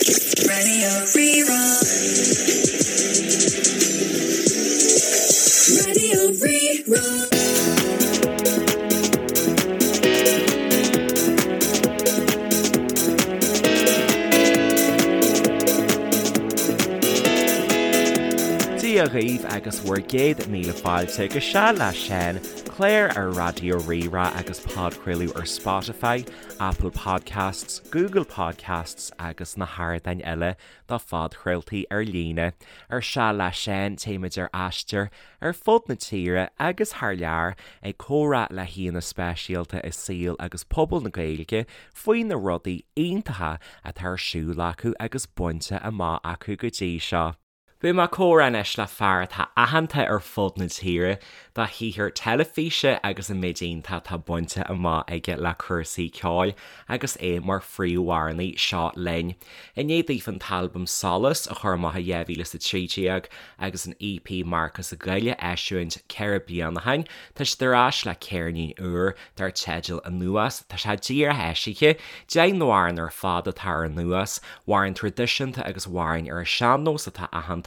Radio Rí-Rá. Radio Rí-Rá. Dia dhaoibh agus bhur gcéad míle fáilte go Seal le Seán, clár ar Raidió Rí-Rá agus podchraoladh ar Spotify, Apple Podcasts, Google Podcasts agus na hardáin eile do phodchraoltaí ar líne. Ar Seal le Seán téimid ar aistear ar fud na tíre agus thar lear ag comhrá le haíonna speisialta i saol agus pobal na Gaeilge faoi na rudaí iontacha atá ar siúl acu agus bainte amach acu go dtí seo. Beidh mé ag comhrá anois le fear atá aitheanta ar fud na tíre dá shaothar teilifíse agus an méid iontach atá bainte amach aige le cúrsaí ceoil agus é mar phríomhamhránaí Seo Linn. I ndiaidh daofa an t-albam Solas a chur amach i 2013 agus an EP Marcas sa gCoill a eisiúint 4 bliana ó shin, tá siad ar ais le ceirnín úr dar teideal Anuas. Tá sé díreach eisithe. 10 n-amhrán ar fad atá ar Anuas, amhráin traidisiúnta agus amhráin ar an sean-nós atá aitheanta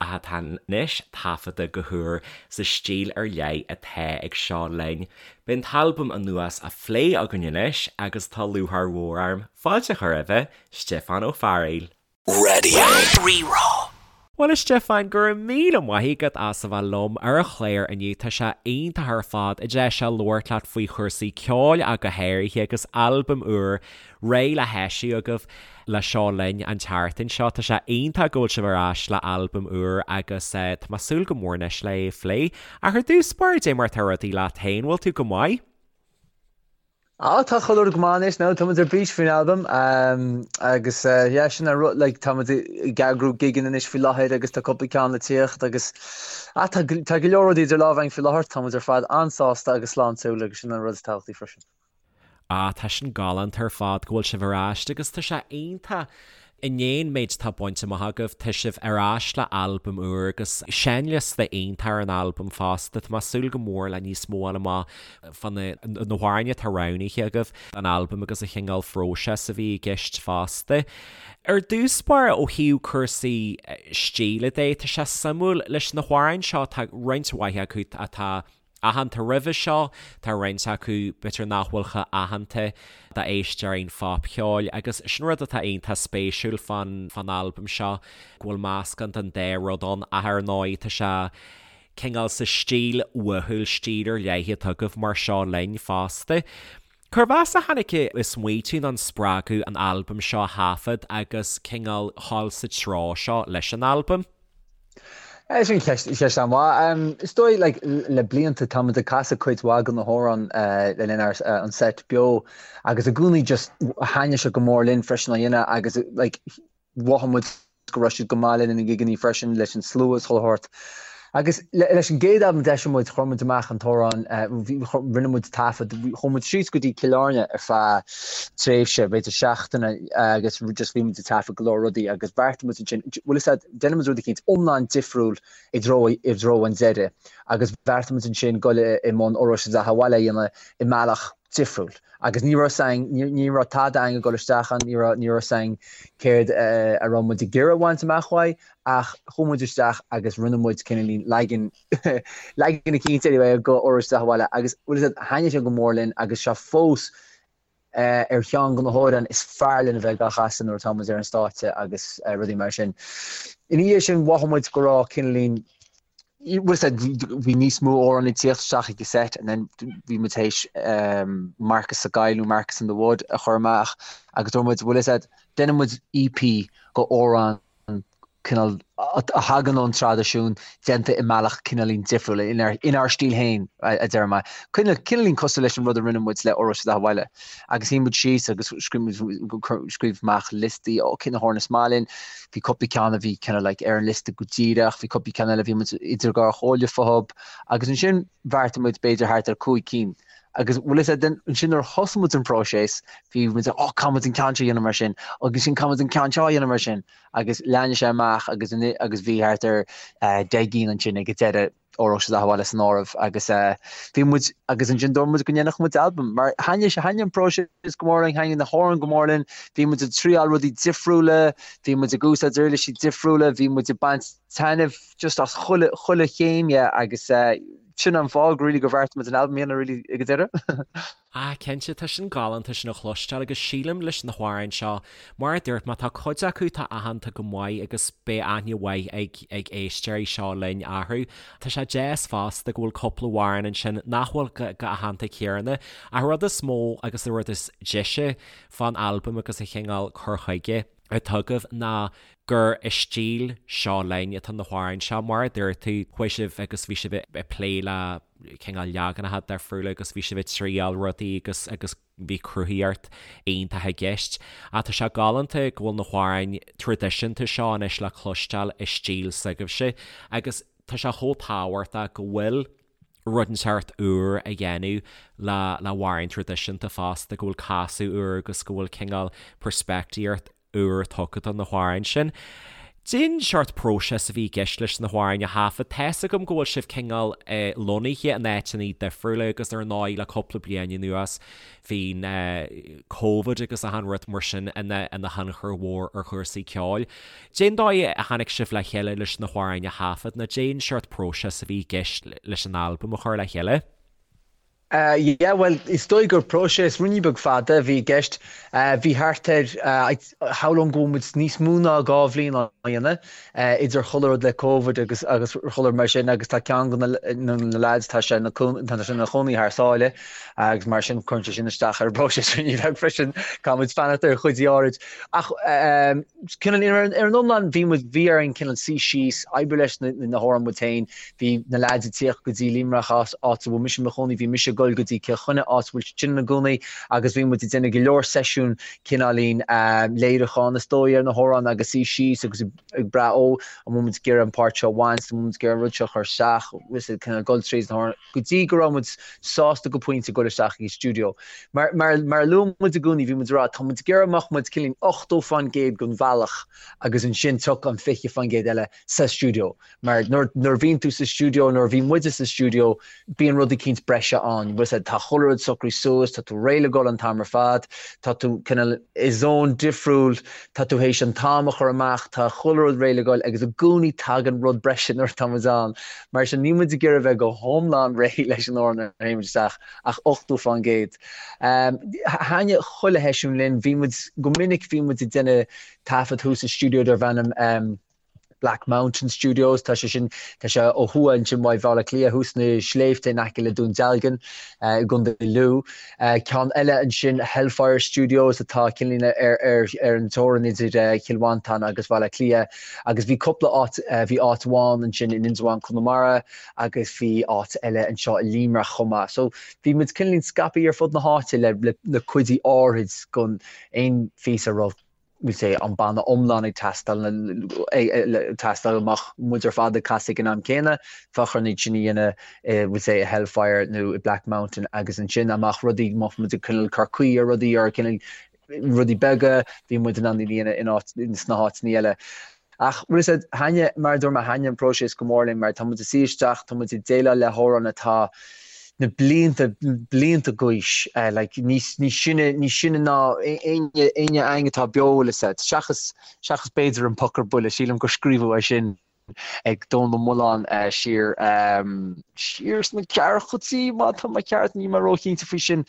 ach atá anois taifeadta go húr sa stíl ar leith atá ag Seo Linn. Beidh an t-albam Anuas á phlé againn anois agus tá lúcháir mhór orm fáilte a chur roimhe, Stiofán Ó Fearghaíl. Radio Rí-Rá. Bhuel a Stiofáin, go raibh míle maith agat as a bheith liom ar an chlár inniu, tá sé iontach ar fad an deis seo labhairt leat faoi chúrsaí ceoil ach go háirithe agus albam úr réidh le heisiú agaibh le Seo Linn an tseachtain seo. Tá sé iontach go bhfuil sibh ar ais le albam úr agus tá mé ag súil go mór anois le é a phlé. Ach ar dtús báire, dé mar atá rudaí leat féin, bhfuil tú go maith? Á, tá chuile rud go maith anois now, tá muid ar bís faoin albam agus yeah, sin an rud, like, tá muid ag eagrú gigeanna anois faoi láthair agus tá cúpla ceann le tíocht agus ah, tá, tá go leor rudaí idir lámha againn faoi láthair, tá muid ar fad an-sásta agus sláintiúil agus sin an rud is tábhachtaí freisin. Ah, tá sin galánta ar fad go bhfuil sibh ar ais agus tá sé iontach I ndiaidh an méid atá bainte amach agaibh, tá sibh ar ais le albam úr agus seinnliosta iontach ar an albam fosta. Tá mé ag súil go mór le níos mó a fháil amach fá na hamhráin atá roghnaithe agaibh don albam agus an chineál phróiseas a bhí i gceist fosta. Ar dtús báire, ó thaobh cúrsaí stíle de, tá sé suimiúil leis na hamhráin seo, tá roinnt mhaith acu atá aitheanta roimhe seo, tá roinnt acu b'fhéidir nach bhfuil chomh aitheanta d'éisteoirí an phopcheoil agus sin rud atá iontach spéisiúil fán fán albam seo, go bhfuil meascán den dá rud ann ach ar ndóigh tá sé cineál sa stíl uathúil, stíl ar leith atá agaibh mar Seo Linn fosta. Cérbh as a tháinig an smaoitiú nó an spreagadh an albam seo a thaifead agus cineál dhul sa treo seo leis an albam? Sin ceist, ceist an-mhaith. Is dóigh, like, le blianta tá muid ag casadh cuid mhaith de na hamhráin le linn ár, an set beo agus i gcónaí just thaitnigh sé go mór linn freisin á dhéanamh agus like mhothaigh muid go raibh siad go maith le linn na ngigeanna freisin, leis an slua is chuile shórt. Agus leis an gcéad albam a d'eisigh muid, chuir muid amach an t-amhrán, rinne muid taifead, chuaigh muid síos go dtí Cill Airne ar feadh tréimhse, b'fhéidir seachtaine, agus just bhí muid ag taifead go leor rudaí agus bheartaigh muid ansin, bhfuil fhios a'd, déanfaidh muid rud eicínt iomlán difriúil i dtreo, i dtreo an deiridh agus bheartaigh muid ansin dul i mbun Óró Sé do Bheatha 'Bhaile a dhéanamh i mbealach difriúil. Agus ní raibh 'fhios a'inn, ní raibh tada a'inn ag dul isteach ann, ní raibh, ní raibh 'fhios a'inn céard a raibh muid ag iarraidh a bhaint amach uaidh, ach chuaigh muid isteach agus rinne muid cineáilín leagan, leagan eicínt anyway de Óró Sé do Bheatha 'Bhaile agus bhfuil 'fhios a'd, thaitnigh sé go mór linn agus sé fós ar cheann de na hamhráin is fearr linn a bheith á chasadh nuair atá muid ar an stáitse agus rudaí mar sin. Ina dhiaidh sin mhothaigh muid go raibh cineáilín, bhfuil 'fhios a'd, bhí níos mó amhrán ag tíocht isteach ag an set and then bhí muid théis Marcas sa gCoill nó Marcas in the Wood a chur amach agus dúirt muid bhfuil 'fhios a'd, déanfaidh muid EP de amhráin cineál a thagann ón traidisiún déanta i mbealach cineáilín difriúil, inár stíl féin a deir mé. Cineáilín cosúil leis an rud a rinne muid le Óró Sé do Bheatha 'Bhaile. Agus shuigh muid síos agus scríobh amach liostaí, ó cé na hamhráin is maith linn, Bhí cúpla ceann a bhí kind of like ar an liosta go díreach, bhí cúpla ceann eile a bhí muid idir dhá chomhairle fúthu agus ansin bheartaigh muid b'fhéidir thart ar 5 cinn. Agus bhfuil fhios a'd, ansin nuair a thosaigh muid an próiseas, bhí muid oh caithfidh muid an ceann seo a dhéanamh mar sin, agus ansin caithfidh muid an ceann seo a dhéanamh mar sin. Agus lean sé amach agus agus bhí thart ar 10 gcinn ansin ag an deireadh. Óró Sé do Beatha Abhaile san áireamh agus bhí muid agus ansin dúirt muid go ndéanfadh muid albam mar thaitnigh sé thaitnigh an próiseas go mór linn, thaitnigh na hamhráin go mór linn, bhí muid ag triáil rudaí difriúla, bhí muid ag úsáid uirlisí difriúla, bhí muid ag baint taitneamh just as chuile chuile chéim dhe agus sin an fáth really gur bheartaigh muid an albam a dhéanamh really ag an deireadh. Ah, cinnte, tá sin galánta sin a chloisteáil agus sílim leis na hamhráin seo, mar a dúirt mé, tá cuid acu atá aitheanta go maith agus beidh aithne mhaith ag ag éisteoirí Seo Linn orthu. Tá sé deas fosta go bhfuil cúpla amhrán ansin nach bhfuil chomh aitheanta céanna. Ach an rud is mó agus an rud is deise fán albam agus an chineál cur chuige atá agaibh ná gur i stíl Seo Linn atá na hamhráin seo. Mar a dúirt tú, chuaigh sibh agus bhí sibh ag plé le cineál leaganacha difriúla agus bhí sibh ag triáil rudaí agus agus bhí cruthaíocht iontach i gceist. Ach tá sé galánta go bhfuil na hamhráin traidisiúnta seo anois le cloisteáil i stíl s'agaibhse agus tá sé chomh tábhachtach go bhfuil rud inteacht úr á dhéanamh le le hamhráin traidisiúnta fosta, go bhfuil casadh úr agus go bhfuil cineál peirspictíocht úr tugtha do na hamhráin sin. Cén seort próiseas a bhí i gceist leis na hamhráin a thaifead. Tá's agam go bhfuil sibh cineál lonnaithe in áiteanna difriúla agus ar ndóigh le cúpla bliain anuas bhí Covid agus achan rud mar sin ina thionchar mhór ar chúrsaí ceoil. Cén dóigh a tháinig sibh le chéile leis na hamhráin a thaifead nó cén seort próiseas a bhí i gceist leis an albam a chur le chéile? Yeah, bhuel, is dóigh gur próiseas ruainnín beag fada a bhí i gceist. Bhí thart ar, shamhlóinn go bhfuil muid níos mó ná 2 bhliain á dhéanamh, idir chuile rud le Covid agus agus chuile rud mar sin agus tá ceann de na lads, tá sé ina chónaí thar sáile agus mar sin cuireann sé sin isteach ar an bpróiseas ruainnín beag freisin, caithfidh muid fanacht ar chuid áirid. Ach cineál ar an iomlán bhí muid, bhí orainn cineál suí síos, oibriú leis na hamhráin muid féin, Bhí na leaids ag tíocht go dtí Limerick, áit a bhfuil mise i mo chónaí, bhí mise ag dul go dtí Cill Chainnigh, áit a bhfuil siad ina gcónaí, agus bhí muid ag déanamh go leor seisiún cineáilín léiriúcháin is dóigh ar na hamhráin agus suí síos agus ag brath ó, an bhfuil muid ag iarraidh an páirt seo a bhaint, an bhfuil muid ag iarraidh an rud seo a chur isteach, bhfuil siad cineál dul tríd na hamhráin go dtí go raibh muid sásta go pointe dul isteach ag an stiúideo. Mar, mar, mar a luaigh muid i gcónaí, bhí muid ag rá, tá muid ag iarraidh go mbeadh muid cineáilín 80% den bhealach agus ansin tiocfaidh an 20% eile sa stiúideo. Mar nuair a bhíonn tú sa stiúideo, nuair a bhí muide sa stiúideo, bíonn rud eicínt breise ann. Bhfuil a fhios agat, tá chuile rud socraithe suas, tá tú réidh le dhul an t-am ar fad, tá tú cineál i zone difriúil, tá tú théis an t-am a chur amach, tá chuile rud réidh le dhul agus i gcónaí tagann rud breise nuair atá muid ann. Mar sin níl muid ag iarraidh bheith go hiomlán réidh leis an amhrán nuair a théann muid isteach ach 80%. Thaitnigh chuile sheisiún linn, bhí muid, go minic bhí muid ag déanamh taifead thuas i stiúideo darb ainm, Black Mountain Studios, tá sé sin, tá sé ó thuaidh ansin uaidh Bhaile Átha Cliath, thuas sna sléibhte in aice le Dún Dealgan i gContae Lú. Ceann eile ansin, Hellfire Studios, atá cineáilín ar, ar, ar an teorainn idir Chill Mhantáin agus Bhaile Átha Cliath. Agus bhí cúpla áit, bhí áit amháin ansin in Indreabhán, Conamara, agus bhí áit eile anseo i Limerick chomh maith. So bhí muid cineáilín scaipthe ar fud na háite le, le, le cuid áirid den aon phíosa a raibh we'll say, an banna iomlán ag teastáil, teastáil go mbeadh muid ar fad ag casadh ag an am céanna, bheadh orainn iad sin a dhéanamh i, we'll say, i Hellfire nó i Black Mountain agus ansin dá mbeadh rudaí, dá mbeadh muid ag cineál cur caoi ar rudaí or cineál rudaí beaga, bhí muid in ann iad a dhéanamh in áit, sna háiteanna eile. Ach, bhfuil a fhios agat, thaitnigh, mar a dúirt mé, thaitnigh an próiseas go mór linn mar tá muid ag suí isteach, tá muid ag déileáil le hamhráin atá na blianta, blianta d'aois, like, níos, níos sine, níos sine ná éinne, éinne againn atá beo, bhfuil a fhios agat, seachas, seachas b'fhéidir an Poc ar Buile, sílim gur scríobhadh é sin ag Dónall Ó Maoláin siar, siar sna ceathrachaidí, má tá mé ceart, níl mé róchinnte faoi sin.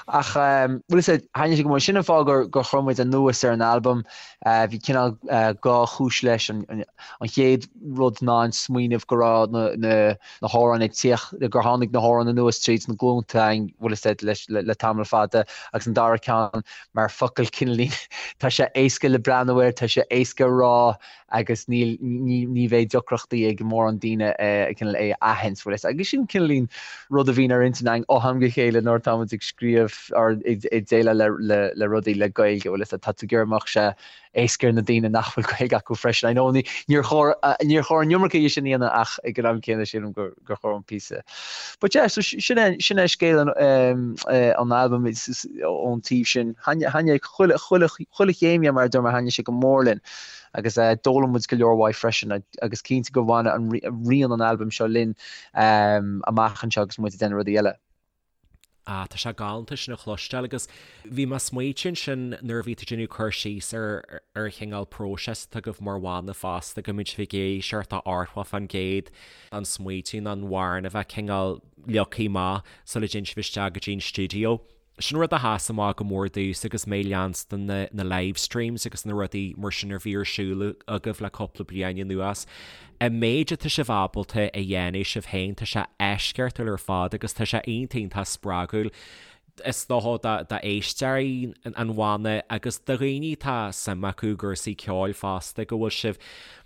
Ach, bhfuil a fhios agat, thaitnigh sé go mór, sin an fáth gur, gur chuir muid anuas ar an albam, Bhí cineál 2 chúis leis. An chéad rud ná an smaoineamh go raibh na hamhráin ag tíocht, gur tháinig na hamhráin anuas tríd na glúnta, bhfuil a fhios agat, le tamall fada. Agus an dara ceann, mar focal cineáilín, tá sé éasca le breathnú air, tá sé éasca a rá agus níl, ní bheidh deacrachtaí ag mórán daoine cineál é a aithint, bhfuil a fhios agat. Agus sin cineáilín rud a bhíonn ar intinn againn ó am go chéile nuair atá muid ag scríobh or ag déileáil le rudaí le Gaeilge, bhfuil a fhios agat, tá tú ag iarraidh go mbeadh sé éasca ar na daoine nach bhfuil Gaeilge acu freisin. I know níor chóir, níor chóir an iomarca dhe sin a dhéanamh ach ag an am céanna sílim gur chóir an píosa. But yeah, so sin é, sin é scéal an an albaim ón taobh sin. Thaitnigh chuile, chuile, chuile chéim dhe mar a dúirt mé, thaitnigh sé go mór linn. Agus d'fhoghlaim muid go leor uaidh freisin agus cinnte go bhfanfaidh rian an albaim seo linn amach anseo agus muid ag déanamh rudaí eile. Ah, tá sé galánta sin a chloisteáil agus bhí mé ag smaoitiú ansin nuair a bhí tú ag déanamh cur síos ar ar an chineál próiseas atá agaibh mar bhanna fosta go mbíonn sibh ag éisteacht 80% an smaoitiú nó an amhrán a bheith cineál leagtha amach sula dtéann sibh isteach go dtí an stiúideo. Sin rud a sheas amach go mór domhsa agus mé ag leanstan na na live streams agus na rudaí mar sin a bhí ar siúl agaibh le cúpla bliain anuas. An méid atá sibh ábalta a dhéanamh sibh féin, tá sé eisceachtúil ar fad agus tá sé iontach iontach spreagúil is dócha d'éisteoirí an bhanna agus do dhaoine atá suim acu i gcúrsaí ceoil fosta go bhfuil sibh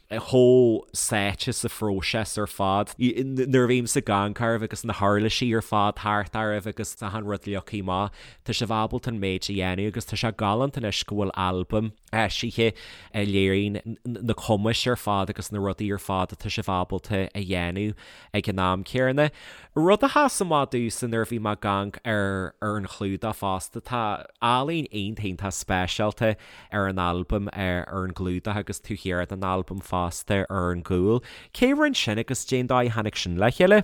chomh sáite sa phróiseas ar fad. Nuair a bhímse ag amharc oraibh agus na huirlisí ar fad thart oraibh agus achan rud leagtha amach, tá sibh ábalta an méid a dhéanamh agus tá sé galánta anois go bhfuil albam eisithe a léiríonn na cumais ar fad agus na rudaí ar fad atá sibh ábalta a dhéanamh ag an am céanna. Rud a sheas amach domhsa nuair a bhí mé ag amharc ar ar an chlúdach fosta, tá ealaín iontach iontach speisialta ar an albam ar an gclúdach agus taobh thiar den albam fosta ar an gcúl. Cé a rinne sin agus cén dóigh a tháinig sin le chéile?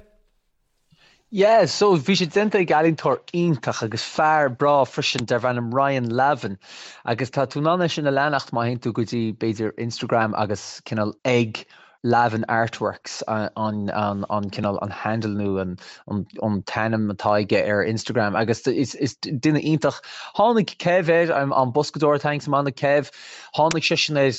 Yeah, so bhí sé déanta ag ealaíontóir iontach agus fear breá freisin darb ainm Ryan Lavin agus tá tú in ann é sin a leanacht má théann tú go dtí b'fhéidir Instagram agus cineál ag Lavin Artworks an an cineál an handle nó an an t-ainm atá aige ar Instagram agus is is duine iontach. Tháinig Kev air, an boscadóir atá sa mbanna Kev, tháinig seisean air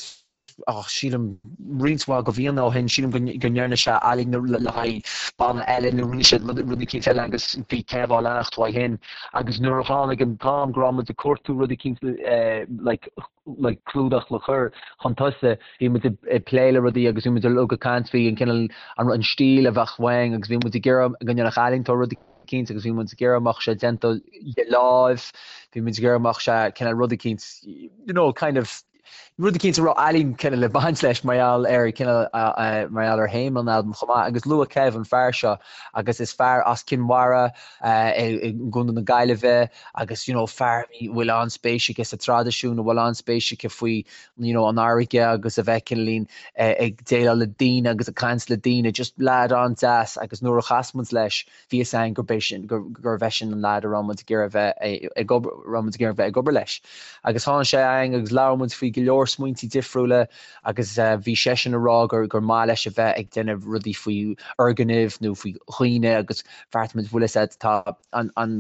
oh, sílim roinnt mhaith de bhlianta ó shin, sílim go go ndearna sé ealaín le haghaidh banna eile nó rinne sé rud eicínt eile agus bhí Kev á leanacht uaidh shin agus nuair a tháinig an t-am go raibh muid ag cuartú rud eicínt like like clúdach le cur chun tosaigh, bhí muid ag plé le rudaí agus bhí muid uilig ag caint faoi an cineál an stíl a bheadh uainn agus bhí muid ag iarraidh go ndéanfadh ealaíontóir rud eicínt agus bhí muid ag iarraidh go mbeadh sé déanta de láimh, bhí muid ag iarraidh go mbeadh sé cineál rud eicínt you know kind of rud eicínt a raibh ealaín cineál le baint leis mar gheall ar cineál mar gheall ar théama an albaim chomh maith agus luadh Kev an fear seo agus is fear as Cinn Mhara i gContae na Gaillimhe agus you know fear a bhfuil an-spéis aige sa traidisiún, a bhfuil an-spéis aige faoi you know an fharraige agus a bheith cineáilín ag déileáil le daoine agus ag caint le daoine, just leaid an-deas agus nuair a chas muid leis bhí fhios againn gurb é sin, gurbh eisean an leaid a raibh muid ag iarraidh a bheith ag obair, raibh muid ag iarraidh a bheith ag obair leis. Agus tháinig sé againn agus labhair muid faoi go leor smaointí difriúla agus bhí seisean ag rá gur gur maith leis a bheith ag déanamh rudaí faoi fhoirgnimh nó faoi dhaoine agus bheartaigh muid bhfuil fhios a'd tá an an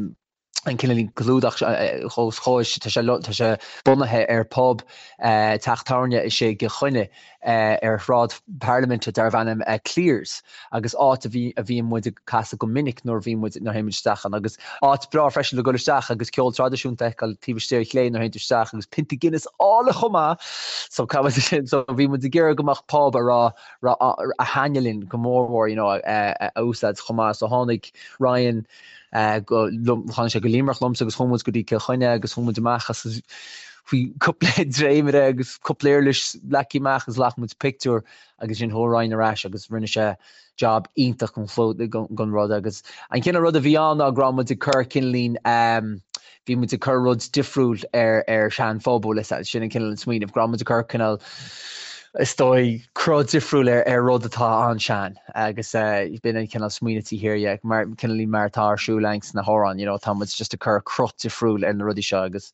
an cineál clúdach os chomhair, tá sé tá sé bunaithe ar pub teach tábhairne istigh i gCill Chainnigh ar Shráid Parlaiminte darbh ainm Cleare's agus áit a bhí a bhíonn muid ag casadh go minic nuair a bhíonn muid nuair a théann muid isteach ann agus áit breá freisin le dul isteach agus ceol traidisiúnta a fheiceáil taobh istigh ar chlé nuair a théann tú isteach agus pionta Guinness álainn chomh maith so so bhí muid ag iarraidh go mbeadh pub a raibh a thaitneodh linn go mór mhór you know a úsáid chomh maith so tháinig Ryan go tháinig sé go Limerick liomsa agus chuaigh muid go dtí Cill Chainnigh agus chuaigh muid amach agus bhí cúpla dréimire agus cúpla uirlis leagtha amach agus ghlac muid pictiúr agus ansin chuaigh Ryan ar ais agus rinne sé job iontach den rud agus an cineál rud a bhí ann ná go raibh muid ag cur cineáilín bhí muid ag cur rud difriúil ar ar sean-phub bhfuil fhios a'd, sin an cineál an smaoineamh, go raibh muid ag cur cineál is dóigh cruth difriúil ar ar rud atá an-sean agus b'in an cineál smaoineamh taobh thiar dhe, mar cineál mar atá ar siúl againn sna hamhráin, you know, tá muid just ag cur cruth difriúil ar na rudaí seo agus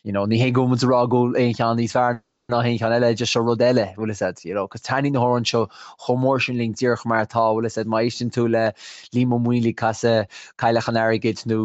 you know, ní hé go bhfuil muid ag rá go bhfuil aon cheann níos fearr ná haon cheann eile, just seo rud eile, bhfuil fhios a'd, you know, 'cause taitníonn na hamhráin seo chomh mór sin linn díreach mar atá, bhfuil fhios a'd, má éisteann tú le Liam Ó Maonlaí ag casadh Cailleach an Airgid nó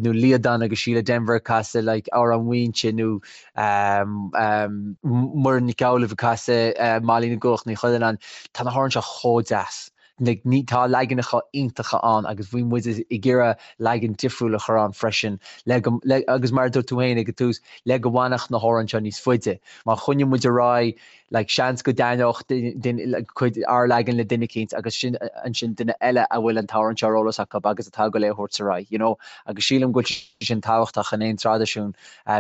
nó Liadán agus Síle Denvir ag casadh like Amhrán Mhaínse nó um, um, Muireann Nic Amhlaoibh ag casadh uh, Mailí na gCuach Ní Chuilleanáin, tá na hamhráin seo chomh deas. Like, ní, tá leaganacha iontacha ann agus bhí muid ag iarraidh leagan difriúil a chur ann freisin le go, le, agus mar a dúirt tú féin ag an tús, le go bhfanfadh na hamhráin seo níos faide. Má choinníonn muid ar aghaidh, like, seans go dtaitneodh duine, like, cuid, ár leagan le duine eicínt agus sin, ansin duine eile a bhfuil an t-amhrán seo ar eolas acu agus atá ag dul é a thabhairt ar aghaidh, you know. Agus sílim go bhfuil sé sin tábhachtach in aon traidisiún,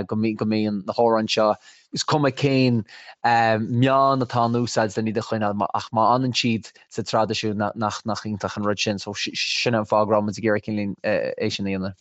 go mbí, go mbíonn na hamhráin seo, Is cuma cén meán atá in úsáid len iad a choinneáil, ach má fhanann siad sa traidisiún, nach iontach an rud sin. So sin an fáth go raibh muid ag iarraidh cineál é sin a dhéanamh.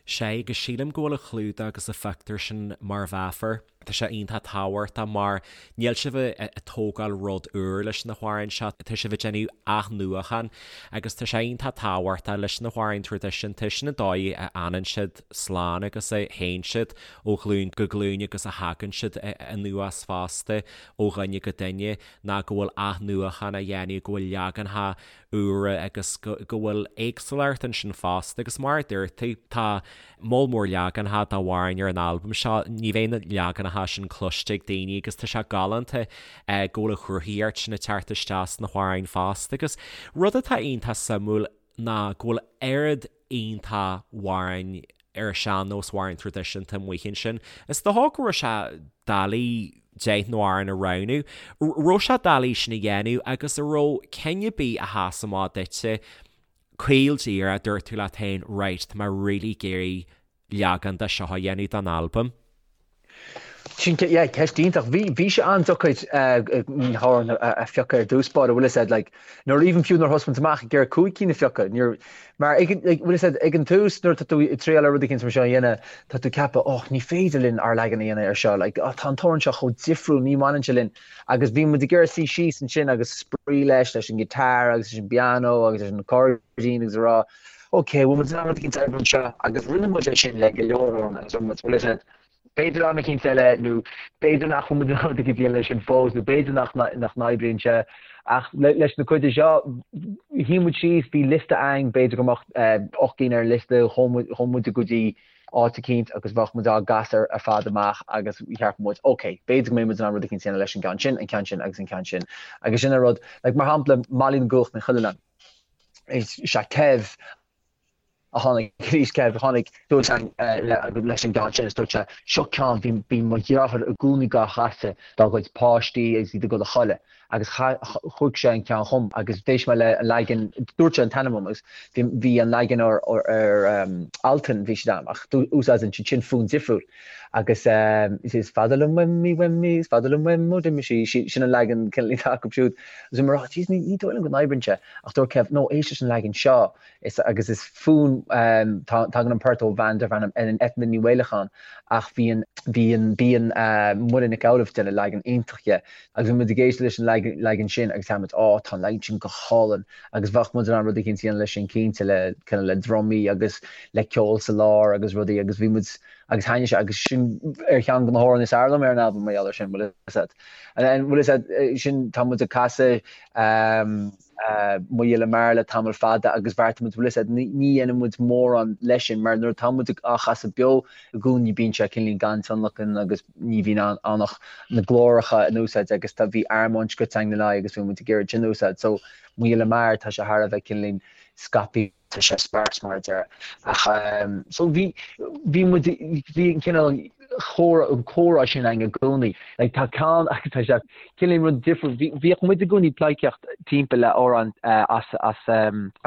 Sea, agus sílim go bhfuil an clúdach agus an phictiúr sin mar mheafar. Tá sé iontach tábhachtach mar níl sibh ag tógáil rud úr leis na hamhráin seo, tá sibh ag déanamh athnuachan agus tá sé iontach tábhachtach leis na hamhráin traidisiúnta, sin an dóigh a fhanann siad slán agus a théann siad ó ghlúin go glúin agus a thagann siad anuas fosta ó dhuine go duine ná go bhfuil athnuachan á dhéanamh, go bhfuil leaganacha úra agus go bhfuil éagsúlacht ansin fosta agus mar a dúirt tú, tá moll mór leaganacha d'amhráin ar an albam seo, ní bheidh na leaganacha sin cloiste ag daoine agus tá sé galánta go bhfuil an chruthaíocht sin ag teacht isteach sna hamhráin fosta agus rud atá iontach suimiúil ná go bhfuil oiread iontach amhráin ar an sean-nós, amhráin traidisiúnta amuigh ansin. Is dócha go raibh sé doiligh 10 n-amhrán a roghnú. Raibh sé doiligh sin a dhéanamh agus an raibh ceann ar bith a sheas amach duitse caol díreach, dúirt tú leat féin, right, tá mé really ag iarraidh leagan de seo a dhéanamh don albam? Sin, yeah, ceist iontach. Bhí, bhí sé an-deacair na hamhráin a phiocadh ar dtús báire, bhfuil fhios a'd, like, nuair, even fiú nuair thosaigh muid amach ag iarraidh 5 cinn a phiocadh, níor, mar ag an, like, bhfuil fhios a'd, ag an tús nuair atá tú ag triail ar rud éicint mar seo a dhéanamh, tá tú ag ceapadh, oh, ní féidir linn ár leagan a dhéanamh ar seo, like, oh, tá an t-amhrán seo chomh difriúil, ní bhaineann sé linn. Agus bhí muid ag iarraidh suí síos ansin agus spraoi leis, leis an guitar agus leis an bpianó agus leis an accordion agus a rá, ok, bhfuil muid in ann rud éicint a oibriú anseo? Agus rinne muid é sin le go leor amhrán agus rinne muid, bhfuil fhios a'd, b'fhéidir am éicint eile nó b'fhéidir nach bhfuil muid in ann rud éicint a dhéanamh leis sin fós nó b'fhéidir nach nach n-oibríonn sé. Ach leis na cuid de seo, shuigh muid síos, bhí liosta a'ainn, b'fhéidir go mbeadh 8 gcinn ar an liosta, chuaigh muid go dtí áit eicínt agus bheadh muid á gcasadh ar fad amach agus cheap muid, ok, b'fhéidir go mbeidh muid in ann rud eicínt a dhéanamh leis an gceann sin, an ceann sin agus an ceann sin. Agus sin an rud, like mar shampla, Molly na gCuach Ní Chuilleanáin, is é Kev a tháinig arís, Kev a tháinig suas leis an gceann sin is dúirt sé, seo ceann, bhí, bhí mo dheartháir i gcónaí dhá chasadh dá gcuid páistí agus iad ag dul a chodladh. agus chuir sé an ceann chugam agus d'éist mé le an leagan, dúirt sé an t-ainm dom agus bhí an leagan ar Altan bhí siad ann ach úsáideann siad sin fonn difriúil agus is fada liom uaim í uaim í is fada liom uaim ó d'imigh sí, sin an leagan cineál atá acu siúd agus bhí mé ag rá jeez ní dóigh liom go n-oibríonn sé ach dúirt Kev no éist leis an leagan seo Is agus is fonn tagann an port ó bhean darb ainm Eithne Ní Mhaolacháin ach bhí an bhí an bíonn Muireann Nic Amhlaoibh ag déanamh leagan iontach dhe agus bhí muid ag éisteacht leis an leagan sin agus cheap muid á tá an leagan sin go hálainn agus bheadh muid in ann rud eicínt a dhéanamh leis sin cinnte le cineál le drumaí agus le ceol sa lár agus rudaí agus bhí muid agus thaitnigh sé agus sin ar cheann de na hamhráin is fearr liom ar an albam mar gheall ar sin bhfuil fhios a'd. Bhfuil fhios a'd sin tá muid ag casadh Mo Ghile Mear le tamall fada agus bheartaigh muid, bhfuil fhios a'd, ní dhéanann muid mórán leis sin mar nuair atá muid á chasadh beo i gcónaí bíonn sé cineál gan tionlacan agus ní bhíonn ann ach na glóracha in úsáid agus tá, bhí armóin scoite againn lena aghaidh agus bhí muid ag iarraidh sin a úsáid. So Mo Ghile Mear tá sé thar a bheith cineál scaipthe, tá sé sparse mar a déarfá. Ach so bhí, bhí muid, bhí an cineál chomhrá, an comhrá sin againn i gcónaí. Like tá ceann agus tá sé cineál rud difriúil. Bhí, bhíodh muid i gcónaí ag pleidhcíocht timpeall le amhrán as, as,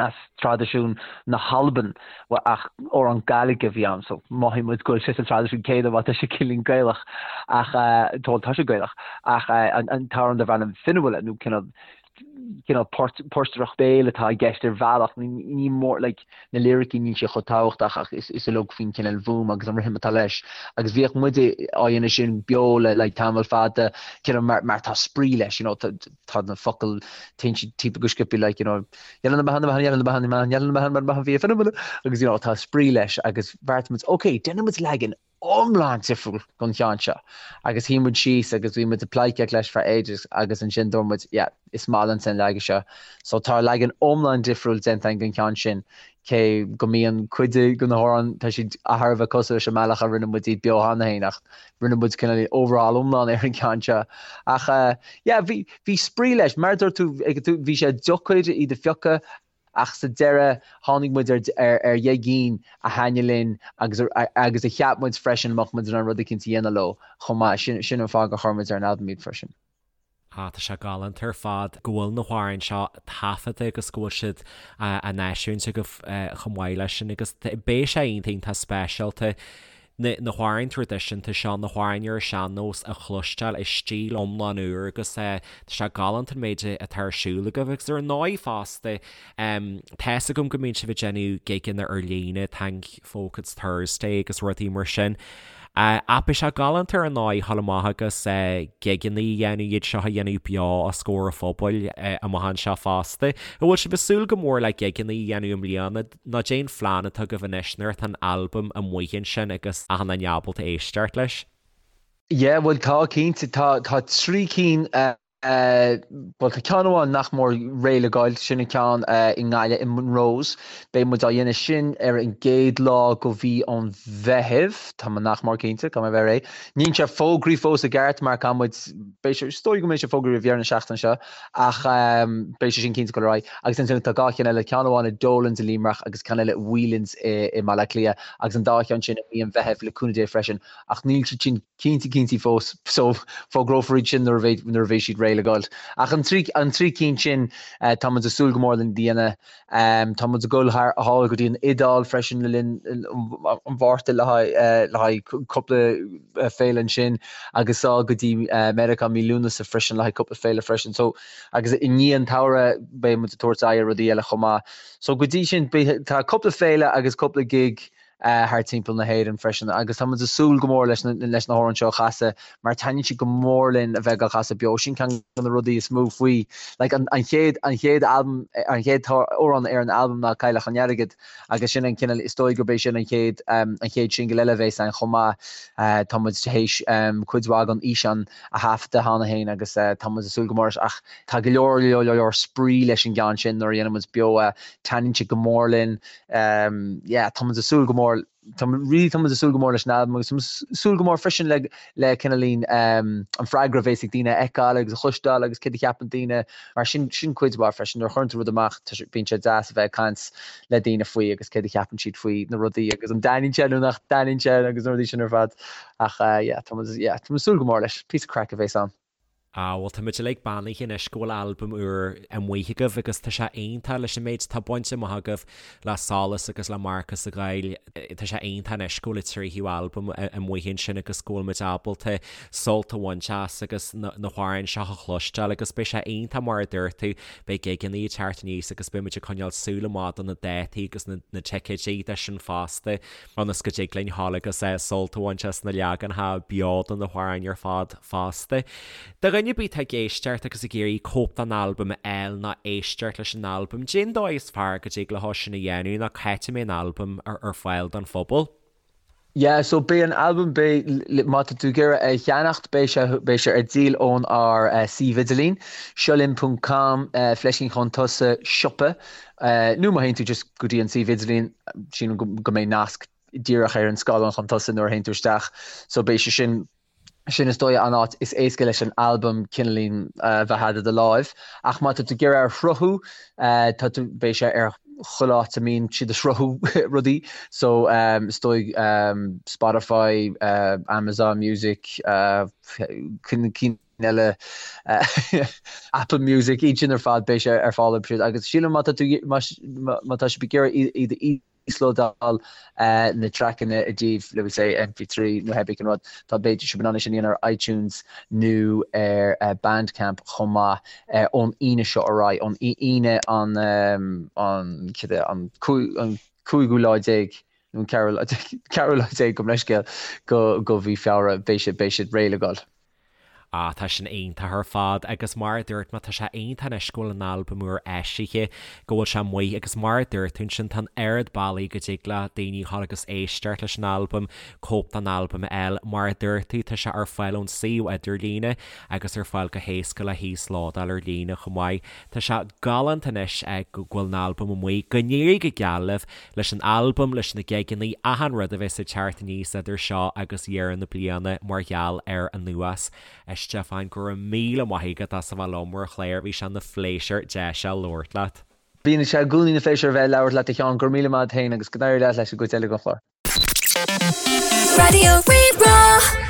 as traidisiún na hAlban ach amhrán Gaidhlig a bhí ann so mhothaigh muid go bhfuil sé sa traidisiún céanna má tá sé cineál Gaelach ach tá, tá sé Gaelach ach an, an t-amhrán darb ainm Fionnuala nó cineál cineál portaireacht béil atá i gceist ar bhealach, ní mór, like, na liricí níl sé chomh tábhachtach ach is is uilig faoin cineál bhfuaim agus an rithim atá leis. Agus bhíodh muid á dhéanamh sin beo le like tamall fada, cineál mar mar tá spraoi leis, you know, tá tá na focail téann siad timpeall go sciobtha like, you know, agus you know tá spraoi leis agus bheartaigh muid, ok, déanfaidh muid leagan iomlán difriúil don cheann seo agus shuigh muid síos agus bhí muid ag pleidhcíocht leis for ages agus ansin dúirt muid yeah is maith liomsa an leagan seo. So tá leagan iomlán difriúil déanta againn den cheann sin cé go mbíonn cuid de na hamhráin tá siad thar a bheith cosúil leis an mbealach a rinne muid iad beo cheana féin ach rinne muid cineál overhaul iomlán ar an gceann seo. Ach yeah bhí bhí spraoi leis mar a dúirt tú bhí sé deacair iad a phiocadh Ach sa deireadh, tháinig muid ar ar dheich gcinn a thaitnigh linn agus agus a cheap muid freisin mbeadh muid in ann rud eicínt a dhéanamh leo chomh maith. Sin sin an fáth gur chuir muid ar an albam iad freisin. Ah, tá sé galánta ar fad go bhfuil na hamhráin seo taifeadta agus go bhfuil siad á n-eisiúint agaibh chomh maith leis sin agus beidh sé iontach iontach speisialta na na hamhráin traidisiúnta seo, na hamhráin ar an sean-nós a chloisteáil i stíl iomlán úr agus tá sé galánta an méid atá ar siúl agaibh agus ar ndóigh fosta tá's agam go mbíonn sibh ag déanamh gigeanna ar líne, Thank Folk It's Thursday agus rudaí mar sin. Ach beidh sé galánta ar ndóigh a ghabháil amach agus gigeanna a dhéanamh, iad seo a dhéanamh beo os comhair an phobail amach anseo fosta. An bhfuil sibh ag súil go mór le gigeanna a dhéanamh i mbliana nó cad é an phlean atá agaibh anois nuair atá an albam amuigh ansin agus achan duine ábalta éisteacht leis? Yeah, bhuel tá cinnte, tá tá 3 cinn Bhuel, tá ceann amháin nach mór réidh le gabháil, sin an ceann i nGaillimh, i Monroe's. Beidh muid á dhéanamh sin ar an gcéad lá go mhí an Mheithimh, tá mé nach mór cinnte, caithfidh mé a bheith réidh. Níl sé fógraithe fós i gceart mar caithfidh muid, beidh sé, is dóigh go mbeidh sé fógraithe roimh dheireadh na seachtaine seo ach beidh sé sin cinnte ag dul ar aghaidh. Agus ansin tá 2 cheann eile, ceann amháin i Dolan's i Luimneach agus ceann eile i Whelan's i mBaile Átha Cliath agus an dá cheann sin i mí an Mheithimh le cúnamh Dé freisin ach níl siad sin cinnte cinnte fós so fógrófar iad sin nuair a bheidh nuair a bheidh siad réidh le gabháil. Ach an trí an trí cinn sin tá muid ag súil go mór lena dhéanamh. Tá muid ag dul thar thall go dtí an Iodáil freisin le linn an Mhárta le haghaidh le haghaidh cúpla féile ansin agus sall go dtí Meiriceá mí Lúnasa freisin le haghaidh cúpla féile freisin. So agus i ndiaidh an tsamhraidh beidh muid ag tabhairt aghaidh ar rudaí eile chomh maith. So go dtí sin beidh tá cúpla féile agus cúpla gig thar timpeall na hÉireann freisin agus tá muid ag súil go mór leis na leis na hamhráin seo a chasadh mar taitníonn siad go mór linn a bheith á gcasadh beo. Sin ceann de na rudaí is mó faoi like an an chéad an chéad albam an chéad amhrán ar an albam ná Cailleach an Airgid agus sin an cineál is dóigh gurb é sin an chéad an chéad singil eile a bheas ann chomh maith. Tá muid théis cuid mhaith den fhíseán a thaifeadadh cheana féin agus tá muid ag súil go mór leis ach tá go leor leor leor spraoi leis an gceann sin nuair a dhéanann muid beo é. Taitníonn sé go mór linn. Yeah, tá muid ag súil go mór, tá really tá muid ag súil go mór leis an albam agus tá muid ag súil go mór freisin le le cineáilín an freagra a bheas ag daoine a fheiceáil agus a chloisteáil agus céard a cheapann daoine mar sin sin cuid mhaith freisin nuair a chuireann tú rud amach tá sé bíonn sé deas a bheith ag caint le daoine faoi agus céard a cheapann siad faoi na rudaí agus an dtaitníonn sé nó nach dtaitníonn sé agus na rudaí sin ar fad ach yeah tá muid yeah tá muid ag súil go mór leis, píosa craic a bheas ann. Ah, bhuel, tá muid uilig beannaithe anois go bhfuil albam úr amuigh agaibh agus tá sé iontach leis an méid atá bainte amach agaibh le Solas agus le Marcas an Ghoill. Tá sé iontach anois go bhfuil an tríú albam amuigh ansin agus go bhfuil muid ábalta sult a bhaint as agus na hamhráin seo a chloisteáil agus beidh sé iontach mar a dúirt tú, beidh gigeanna ag teacht aníos agus beidh muid ag coinneáil súil amach do na dátaí agus na ticéidí de sin fosta. ionas go dtig linn ghabháil agus sult a bhaint as na leaganacha beo de na hamhráin ar fad fosta. Do dhuine ar bith atá ag éisteacht agus ag iarraidh cóip den albam a fháil nó éisteacht leis an albam, cad é an dóigh is fearr go dtig leo sin a dhéanamh nó cá háit a mbeidh an albam ar fáil don phobal? Yeah, so beidh an albam, beidh, má tá tú ag iarraidh é a cheannacht, beidh sé, beidh sé ar díol ón ár suíomh idirlín, seolinn ponc com, fleiscín chun tosaigh, siopa. Nó má théann tú just go dtí an suíomh idirlín, sílim go mbeidh nasc díreach ar an scáileán chun tosaigh nuair a théann tú isteach. So beidh sé sin, sin is dóigh an áit is éasca leis an albam cineáilín a bheith agat i do láimh. Ach má tá tú ag iarraidh é a shruthú, tá tú, beidh sé ar chuile áit a mbíonn siad ag sruthú rudaí. So is dóigh Spotify, Amazon Music, cinn eile, Apple Music, iad sin ar fad, beidh sé ar fáil orthu siúd. Agus sílim má tá tú, má tá sibh ag iarraidh iad a íoslódáil na traiceanna i dtaobh, let me say, MP3 nó pé ar bith cén rud, tá beidh sibh in ann é sin a dhéanamh ar iTunes nó ar Bandcamp chomh maith ón Aoine seo ar aghaidh, ón Aoine an, an, cad é, an cúigiú lá déag nó an ceathrú lá déag, ceathrú lá déag gabh mo leithscéal, go mhí Feabhra, beidh siad, beidh siad réidh le goil. Ah, tá sin iontach ar fad agus mar a dúirt mé, tá sé iontach anois go bhfuil an albam úr eisithe, go bhfuil sé amuigh agus mar a dúirt tú ansin, tá an oiread bealaí go dtig le daoine dhul agus éisteacht leis an albam, cóip den albam a fháil. Mar a dúirt tú, tá sé ar fáil ón suíomh idirlíne agus ar fáil go héasca le híoslódáil ar líne chomh maith. Tá sé galánta anois go bhfuil an albam amuigh. Go n-éirí go geal libh leis an albam, leis na gigeanna, achan rud a bheas ag teacht aníos idir seo agus deireadh na bliana mar gheall air anuas. A Stiofáin, go raibh míle maith agat as a bheith liom ar an chlár, bhí sé ina phléisiúr deis a labhairt leat. Bíonn sé i gcónaí ina phléisiúr a bheith ag labhairt leat a Sheáin, go raibh míle maith agat féin agus go n-éirí leat leis an gcuid eile den chlár. Raidió Rí-Rá.